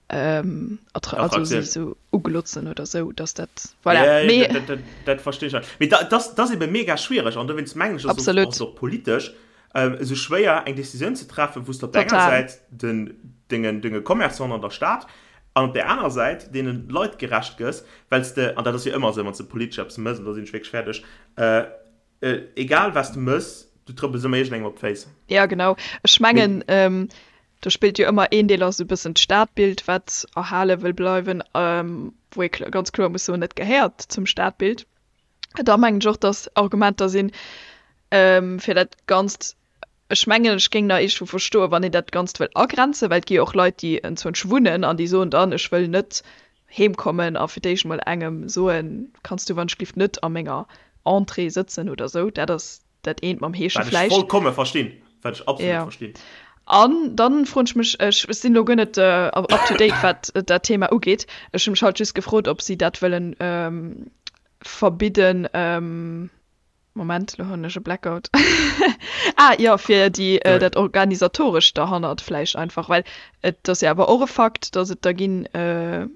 also si esou uglotzen oder esou, dass dat, voilà. Ja, Mee dat, dat, dat verstehe ech. Mee dat, dat ass ebe mega schwiereg an dowéinst mengen ech, ass et och politesch esou schwéier eng Decisioun ze treffen, wou s de op der enger Säit den dengen, denge Commerçanten an der Stad an op der anerer Säit deene Leit gerecht gëss, well s de, an dat ass jo ëmmer esou, wann s de politesch eppes mëss, an da sinn ech wierklech fäerdeg, Egal was de mëss, du trëppels ëmmer iergendengem op d'Féiss. Ja genau, ech mengen do spillt jo ëmmer een Deel ass esou e bëssen d'Stadbild wat erhale wëll bleiwen, wou ee ganz kloer muss soen, et gehéiert zum Stadbild. Da mengen ech och, datt Argumenter sinn fir dat Ganzt Ech mengen, ech géing nach iergendwou verstoen, wann een dat Ganzt wëll agrenzen, well et gi jo och Leit, déi enzwousch wunnen an déi soen dann, ech wëll net heemkommen a fir d'éischt mol engem soen, kanns du wannschglift net a menger Entrée sëtzen oder esou. Dat ass dat eent mam Heesche Wat ech vläicht. vollkomme verstinn. Wat ech absolut Jo. verstinn. An dann froen ech mech, ech sinn elo guer net up to date, wat dat Thema ugeet, ech hu mech halt just gefrot, ob si dat wëllen verbidden, Moment, lo hunn ech e Blackout. Ah jo, fir déi, äh, dat Organisatorescht derhannert vläicht einfach, well et ass jo awer och e Fakt, datt et der ginn, äh,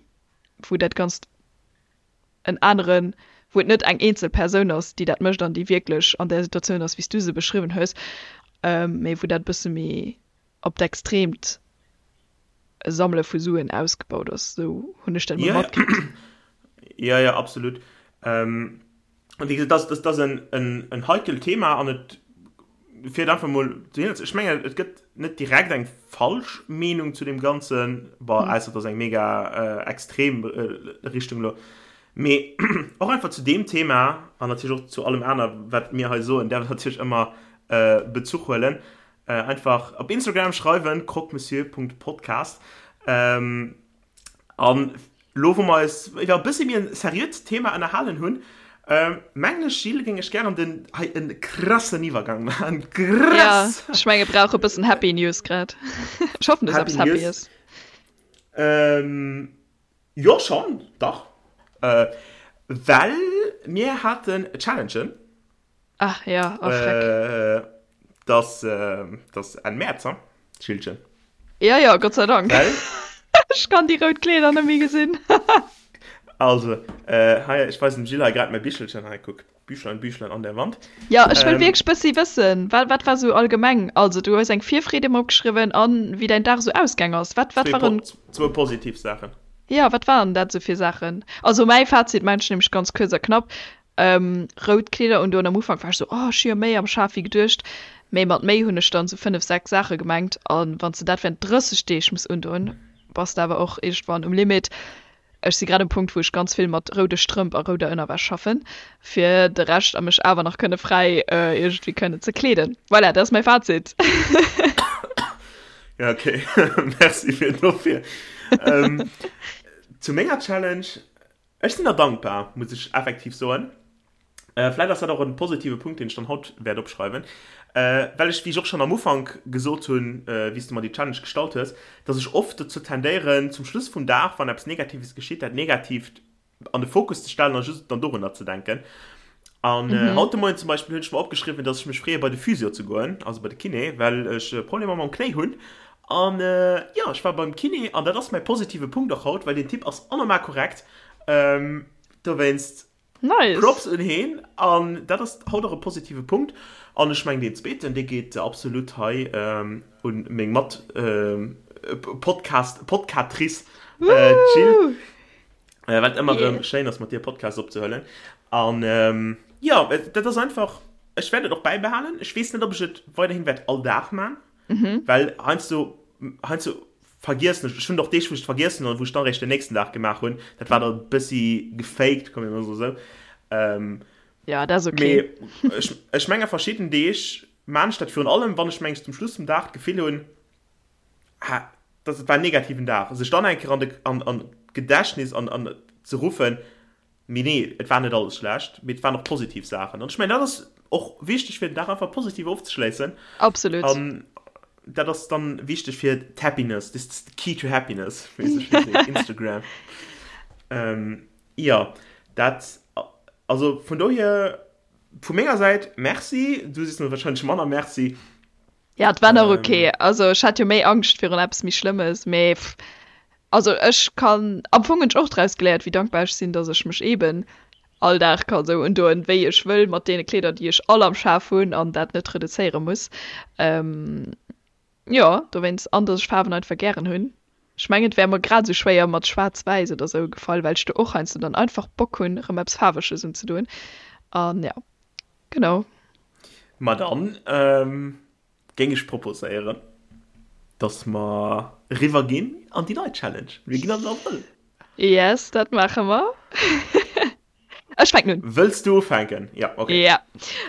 wou dat Ganzt en aneren, wou et net eng eenzel Persoun ass, déi dat mécht an déi wierklech an där Situatioun ass, wéi s du se beschriwwen hues, mee wou dat e bësse méi op d'Extreemt Sammele vu Suen ausgebaut ass. Esou hunn ech dat emol matkritt. Jo, jo, absolut. Ähm, An wéi gesot, dat ass en heikelt Thema an et fir einfach mol dohinner ze. Ech mengen, et gëtt net direkt eng falsch Meenung zu deem Ganzen, bon, ausser et ass eng mega extrem Richtung elo. Mee och einfach zu deem Thema an natierlech och zu allem aner, wat mir hei soen, däerf een natierlech ëmmer Bezuch huelen. Einfach op Instagram schreiwen, croquemessieur.podcast. An lo wou mer eis iwwer e bëssi méi en seriöt Thema ënnerhalen hunn, mengen ech Gilles, géing ech gären den hei en krassen Iwwergang maachen. Krass! Ja, ech menge brauche e bëssen Happy News grad. Ech hoffen du hues eppes Happy News. Jo schonn, dach. Well mir haten Challengen. Ach ja, oh Schreck. Dass, dass Enn Mäerz, ha, Schildchen? Ja, ja, Gott sei Dank. Well? Ech kann déi rout Kleeder net méi gesinn. Also, hei, ech weisen dem Jill hei grad mäi Bichelchen. Hei, kuck, Büchlein, Büchlein an der Wand. Ja, ech wëll wierklech bëssi wëssen, wat, wat war sou allgemeng? Also, du hues eng Virfreed emol opgeschriwwen an wéi däin Dag sou ausgaang ass. Wat, wat waren. Zwou positiv Saachen. Ja, wat waren dat sou fir Saachen? Also, mäi Fazit, mengen ech nämlech ganz kuerz a knapp, Rout Kleeder undoen. Am Ufank war ech sou, oh ech hu jo méi am Schaf wéi geduecht. Mee mat méi hunn ech dann sou 5, 6 Saache gemengt. A wann s de dat während 30 Deeg muss undoen, bass de awer och iergendwann um Limit. Ech si grad um Punkt, wou ech ganz vill mat roude Strëmp a rouder Ënnerwäsch schaffen, fir de Rescht a mech awer nach kënne fräi iergendwéi kënnen ze kleeden. Voilà, dat ass mäi Fazit. Ja, okay. Merci fir dofir. Zu menger Challenge, Ech sinn der dankbar, muss ech effektiv soen. Vläit ass dat och en positive Punkt, deen ech dann haut wäert opschreiwen, well ech, wéi ech och schonn am Ufank gesot hunn, wéi s de mer déi Challenge gestallt hues, dass ech oft dozou tendéieren, zum Schluss vum Dag, wann eppes Negatives geschitt, dat Negatiivt an de Fokus ze stellen a just dann dorunner ze denken. An haut de Moien zum Beispill hunn ech mer opgeschriwwen, dass ech mech freeë bei de Physio ze goen, also bei de Kiné, well ech Problemer mam Knéi hunn. An jo, ech war beim Kiné an dat ass mäi positive Punkt och haut, well deen Typ ass anormal korrekt. Dowéinst Nice. Props un heen an dat ass haut och e positive Punkt. An ech mengen deen zweeten, dee geet absolut hei un meng Mat Podcast Podcatrice Jill, wat ëmmer erëm schéin ass mat dir Podcast opzehuelen. An jo, dat ass einfach, ech wäert et och bäibehalen. Ech weess net, ob ech et weiderhin wäert all Dag man. Mhm. Well heiansdo, heiansdo vergiessen ech, ech hunn och Deeg, wou ech et vergiessen hunn an wou ech dann eréischt den nächsten Dag gemaach hunn. Dat war da e bëssi gefaked, komm mir mol esou. Ähm, Ja, dat ass okay. Mee ech, ech menge verschidden Deeg. maan ech dat virun allem, wann ech mengs zum Schluss vum Dag d'Gefill hunn, ah, dat war en negativen Dag, sech dann eng Kéier an de, an, an d'Gedächtnis an, an ze ruffen, mee nee, et war net alles schlecht, mee et waren och positiv Saachen. An ech mengen, dat ass och wichteg, fir den Dag einfach positiv ofzeschléissen. Absolut. An dat ass dann wichteg fir d'Happiness, this is the key to happiness, wéi se schéin seet, Instagram. Ähm, jo, dat, also vun dohier, vu menger Säit Merci, du sees mir wahrscheinlech manner Merci. Ja, et war nach ok. Also ech hat jo méi Angscht virun eppes méi Schlëmmes, mee also ech kann, am Fong hunn ech och draus geléiert, wéi dankbar ech sinn, datt ech mech eeben all Dag ka sou undoen, wéi ech wëll, mat deene Kleeder, déi ech all am Schaf hunn an dat net reduzéiere muss. Jo, dowéinst, an datt ech Faarwen einfach gären hunn. Ech mengen, et wär mer grad esou schwéier mat Schwaarz-Wäiss oder sou gefall, well ech do och heiansdo dann einfach Bock hunn, erëm eppes Faarweges unzedoen. An ja, genau. Ma dann géing ech proposéieren, dass mer eriwwer ginn an déi nei Challenge. Mir ginn an den Abrëll. Yes, dat maache mer. Ech fänken un. Wëlls du ufänken? Ja, okay. Ja,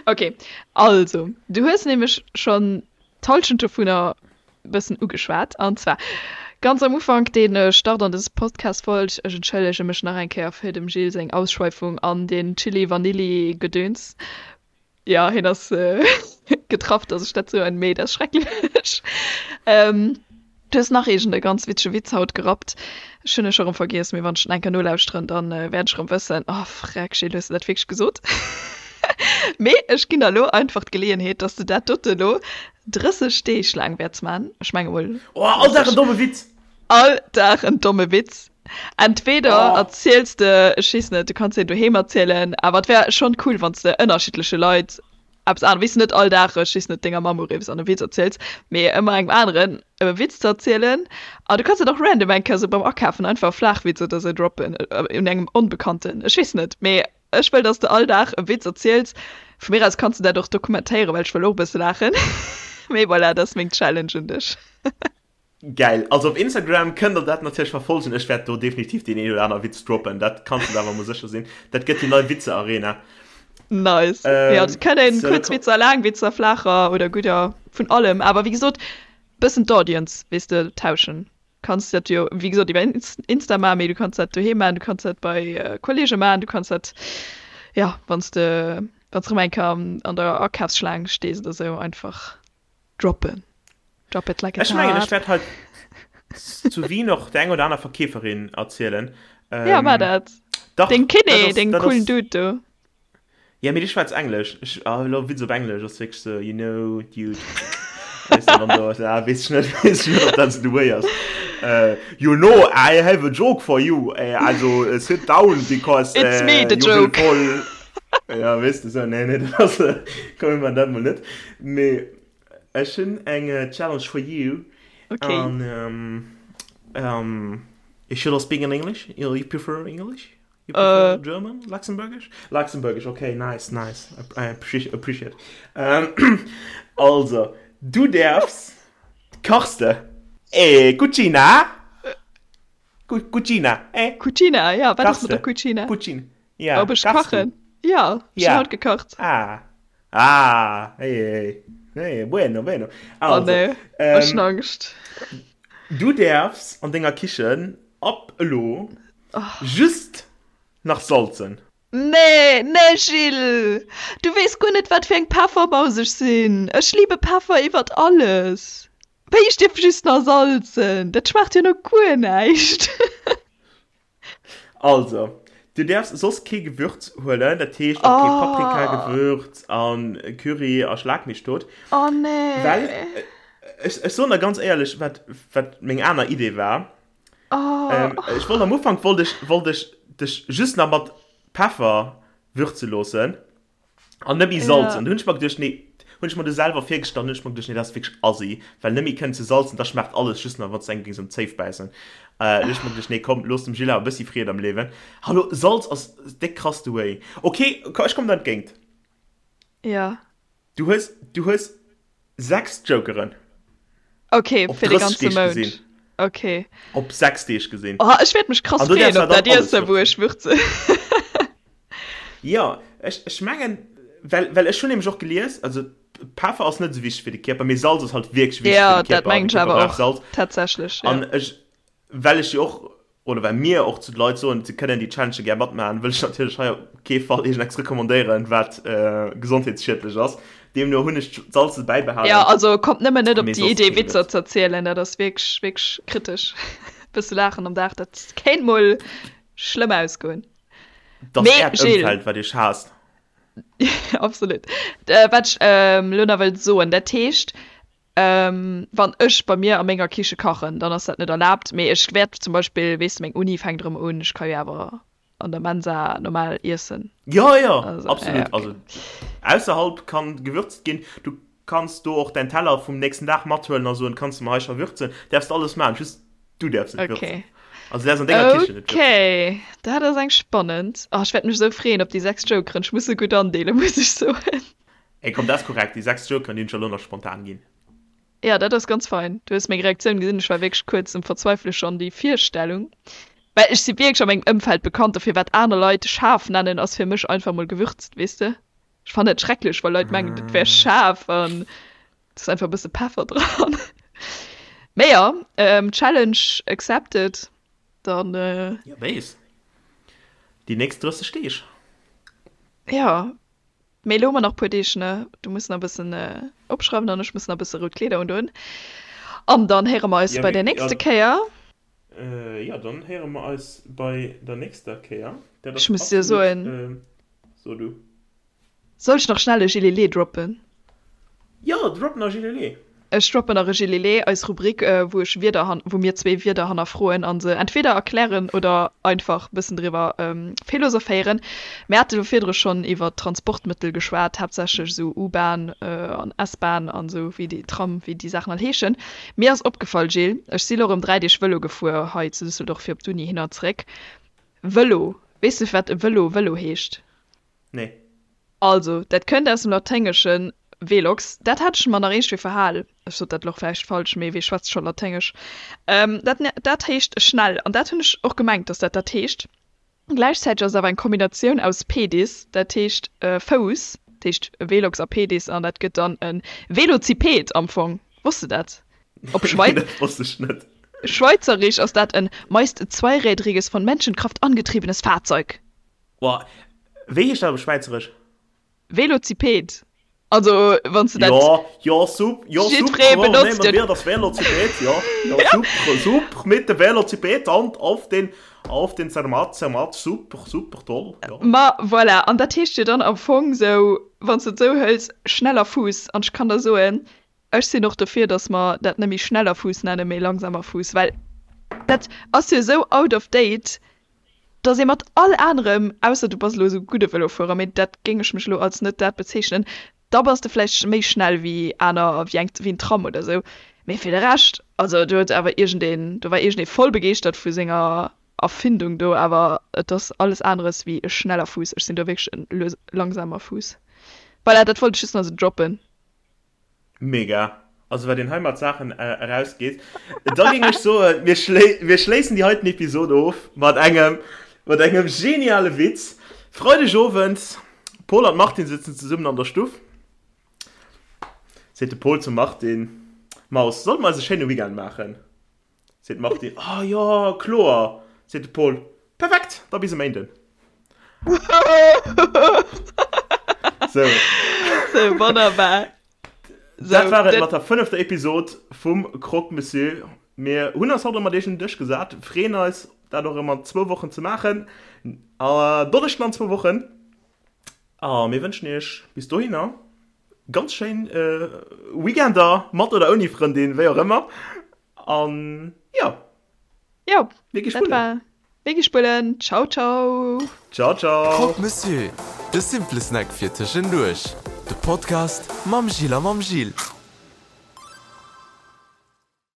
okay. Also, du hues nämlech schonn d'Hallschent dovunner e bëssen ugeschwat. An zwar ganz am Ufank, dee Start an dës Podcast-Folg. Ech entschëllege mech nach eng Kéier fir dem Gilles seng Ausschweifung an den Chili-Vanilli-Gedöns. Jo, hien ass getraff, dass ech dat soen, mee dat ass schrecklech. Du hues nach iergend e ganz witzege Witz haut gerappt. Ech hunn e scho rëm vergiess, mee wann ech en eng Kéier nolauschteren, dann wäert ech rëm wëssen, Oh freck, Gilles, hues de dat wierklech gesot? Mee ech ginn der elo einfach d'Geleeënheet, dass de dat dote elo 30 Deeg laang wäerts man. Ech menge mol. Oh, all Dag en domme Witz! All Dag en domme Witz. Entweder erziels de, ech weess net, du kanns deen doheem erzielen, awer et wär schonn cool, wann s de ënnerschiddleche Leit eppes aneres, weess de, net all Dag, ech weess net, denger Mamm uriffs an e Witz erziels, mee ëmmer engem aneren e Witz ze erzielen. An du kanns dat och random eng Kéier sou beim Akafen einfach e Flaachwitz oder sou droppen un engem Onbekannten, ech weess net, mee ech wëll, dass de all Dag e Witz erziels. Vu mir aus kanns de dat och dokumentéieren, well ech wëll och e bësse laachen. Mee voilà, dat ass meng Challenge un dech. Gäil! Also op Instagram kënnt der dat natierlech verfolgen. Ech wäert do definitiv deen een oder aner Witz droppen, dat kanns de der awer mol sécher sinn. Dat gëtt déi nei Witze-Arena. Nice! Jo, et kënnen kuerz Witzer, laang Witzer, flaacher oder gudder, vun allem. Awer wéi gesot, bëssen d'Audience, weess de, tauschen. Kanns dat jo wéi gesot iwwer Insta maachen, mee du kanns dat doheem maachen, du kanns dat bei Kolleege maachen, du kanns dat, jo, wann s de, wann s de erëm eng Kéier an der Akafsschlaang stees oder sou, einfach droppen. Drop it like it's Ech mengen, ech hot. wäert hei zu Wien och der eng oder aner Verkeeferin erzielen. Ja, mar Ähm, dat. dach, Deng dat Kiné, ass, deng dat coolen ass, Dude do. ja, mee dee schwätzt Englesch. Ech, ah, elo Witz op Englesch ass wierklech sou, you know, dude. Weess de, wann do, ah, weess ech net, weess ech net, ob dat sou de Way ass. Äh, you know, I have a joke for you. Äh, also, äh, sit down, because, It's me, äh, the you will joke. fall. Ja, weess de, sou, nee, nee, dat ass, komm, mir man dat mol net. Mee Ech hunn eng Challenge for you. Okay. An um, um, should I speak in English? You, you prefer English? You prefer uh, German? Luxembourgish? Luxembourgish, okay, nice, nice. I appreciate. appreciate. Um, also, du därfst kachst de. Eh, Cucina? Cu Cucina, eh? Cucina, ja, wat ass mat der Cucina? Cucina, ja. Ob ech kachen? Ja, ech hunn haut gekacht. Ah, Ah, hey, hey, hey, bueno, bueno. Also, oh nee, ähm, ech hunn Angscht. Du däerfs an denger Kichen ab elo oh. just nach salzen. Nee, nee Gilles, du weess guer net wat fir eng Peffermaus ech sinn. Ech liebe Peffer iwwert alles. Wéi ech dierf just nach salzen? Dat schmaacht jo no guer näischt. Also, du däerfs soss kee Gewürz huelen, dat heescht och kee Paprikagewürz an Curry a schlag mech tot. Oh nee. Well, ech, ech soen der ganz éierlech, wat, wat meng aner Idee war. Oh. Ech wollt am Ufank wollt ech, wollt ech dech just nach mat Peffer würze loossen. An net méi salzen. Hunn ech mer geduecht, nee, hunn ech mer du selwer virgestallt, hunn ech mer geduecht, nee, dat ass wierklech assi, well net méi kënnen ze salzen, da schmaacht alles just nach, wann s de engem géings um Zéif bäissen. Äh, hunn ech mer geduecht, nee, komm, looss dem Gilles awer e bëssi Freed am Liewen. Hallo, Salz ass déck krass de Way. Ok, ech kommen der entgéint. Ja. Du hues, du hues 6 Jokeren. Ok, Op fir de 30 ganze Deeg Mount. gesinn. Ok. Op 6 Deeg gesinn. Oh, ech wäert mech krass An du freeën däerfs op awer dat dann alles Iessen, wou würzen. ech würzen. Jo, ech, ech mengen, well, well ech hunn nämlech och gelies, also. Peffer ass net esou wichteg fir de Kierper, mee Salz ass halt wierklech wichteg fir de Kierper. Ja, dat mengen ech awer och, tatsächlech. An ech, well ech jo och, oder well mir och zu de Leit soen, se kënnen déi Challenge gär matmaachen, wëll ech natierlech hei op kee Fall iergendeppes recommandéieren, wat gesondheetsschiedlech ass. Deemno hunn ech d'Salze bäibehalen. Jo, also kommt nëmmen net op déi Idee, Witzer ze erzielen, dat ass wierklech, wierklech kritesch. E bësse laachen am Dag, dat kéint mol schlëmm ausgoen. Dat ass äert Ëmfeld, wat iech haasst. Absolut. Wat ech elo nach wëllt soen, dat heescht, wann ech bei mir a menger Kiche kachen, dann ass dat net erlaabt, mee ech wäert zum Beispill, weess de, meng Uni fänkt erëm un, ech ka jo awer an der Mensa normal iessen. Jo, jo, absolut. Also ausserhalb kann gewürzt ginn. Du kanns do och däin Teller vum nächsten Dag mathuelen a soen, kanns de mer hei scho würzen. Däerfs de alles maachen, just du däerfs net würzen. Okay. Also du däerfs an denger Kichen net würzen. Okay, dat ass eng spannend. Oh, ech wäert mech esou freeën op déi 6 Jokeren. Ech muss se gutt andeelen, muss ech soen. Ey, komm, dat ass korrekt. Déi 6 Jokeren, déi hunn ech elo nach spontan ginn. Ja, dat ass ganz fein. Du hues meng Reaktioun gesinn, ech war wierklech kuerz um Verzweifele schonn, déi Virstellung. Well ech si wierklech a mengem Ëmfeld bekannt dofir, wat aner Leit schaarf nennen, ass fir mech einfach mol gewürzt, weess de. Ech fannen et schrecklech, wa Leit mengen, dat wär schaarf an et ass einfach e bësse Peffer dran. Mee jo, Challenge accepted, dann. Jo, weess. Déi nächst 30 Deeg. Jo, Mee elo hu mer nach puer Deeg, ne? Du muss nach e bëssen opschreiwen an ech muss nach e bësse rout Kleeder undoen. An dann héiere mer eis bei der nächste Kéier. Jo, dann héiere mer eis bei der nächster Kéier. Dat ass Ech muss dir soen. So du. Soll ech nach schnell e Gilele droppen? Jo, drop nach e Gilele! Ech droppen nach e Gilele, eis Rubrik, wou ech Wierder, wou mir zwee Wierder hannerfroen a se entweder erklären oder einfach bëssen driwwer philosophéieren. Mir hate jo virdru schonn iwwer Transportmëttel geschwat, haaptsächlech esou U-Bahn an S-Bahn an esou, wéi déi Tram, wéi déi Saachen all heeschen. Mir ass opgefall, Gilles, ech si lo erëm 3 Deeg Vëlo gefuer hei zu Düsseldorf fir op d'Uni hin an zeréck. Vëlo, weess de firwat e Vëlo Vëlo heescht? Nee. Also, dat kënnt aus dem Laténgeschen velox, dat hat ech mer nach iergendwéi verhal, ech sot dat elo och vläicht falsch, mee wee schwätzt scho Laténgesch, dat dat heescht schnell, an dat hunn ech och gemengt, dass dat dat heescht. Gläichzäiteg ass et awer eng Kombinatioun aus pedis, dat heescht Fouss, dat heescht velox a pedis, an dat gëtt dann e Velociped am Fong. Wosst de dat? Op Schwei. Nee, dat wosst ech net. Schweizerisch ass dat en meist zweirädriges, von Menschenkraft angetriebenes Fahrzeug. Boah, wéi heescht dat op Schwäizeresch? Velociped. Also wann s de dat. Jo, jo, sup, jo, Jiddweree super, benotzt nehmen et. wir das Velociped, ja, ja, super, super, mit dem Velociped an auf den, auf den Zermatt, Zermatt, super, super, toll, ja. Ma voilà, an dat heescht jo dann am Fong sou, wann s de et sou hëls, schneller Fuuss. An ech kann der soen, ech sinn och dofir, datt mer dat net méi schneller Fuuss nennen, mee langsamer Fuuss, well dat ass jo esou out of date, Dass ee mat all anerem, ausser du bass elo esou gudde Vëlofuerer, mee dat géing ech mech elo als net dat bezeechnen, da bass de vläicht méi schnell wéi aner, wéi eng, wéi en Tram oder esou. Mee fir de Rescht, also do huet awer iergendeen, do war iergendee voll begeeschtert vu senger Erfindung do, awer et ass alles aneres wéi e schneller Fuuss. Ech sinn do wierklech e lues, langsamer Fuuss. Voilà, dat wollt ech just nach esou droppen. Mega. Also wat een hei mat Saachen erausgeet. Da géing ech soen, mir mir schléissen déi heiten Episode of mat engem mat engem geniale Witz. Freideg Owend, Pol an d'Martine sëtzen zesummen an der Stuff. Seet de Pol zum Martine, Maus, solle mer eis e schéine Weekend maachen? Seet d'Martine, Ah jo, kloer! Seet de Paul, Perfekt, da bis e Méinden. Sou. Sou, wonnerbar. Dat war et mat der fënnefter Episod vum Croque Monsieur. Mir hunn eis haut erëm mat iech un den Dësch gesat, freeën eis, dat och erëm an zwou Wochen ze maachen. Donneschden an zwou Wochen. A mir wënschen iech bis dohinner ganz schéin Weekender, mat oder ouni Frëndin, wéi och ëmmer. An jo, Jo, mir gi dat spullen. war Mir gi spullen. Ciao, ciao. Ciao, ciao. Croque Monsieur, de simple Snack fir tëschenduerch. De Podcast mam Gilles a mam Gilles.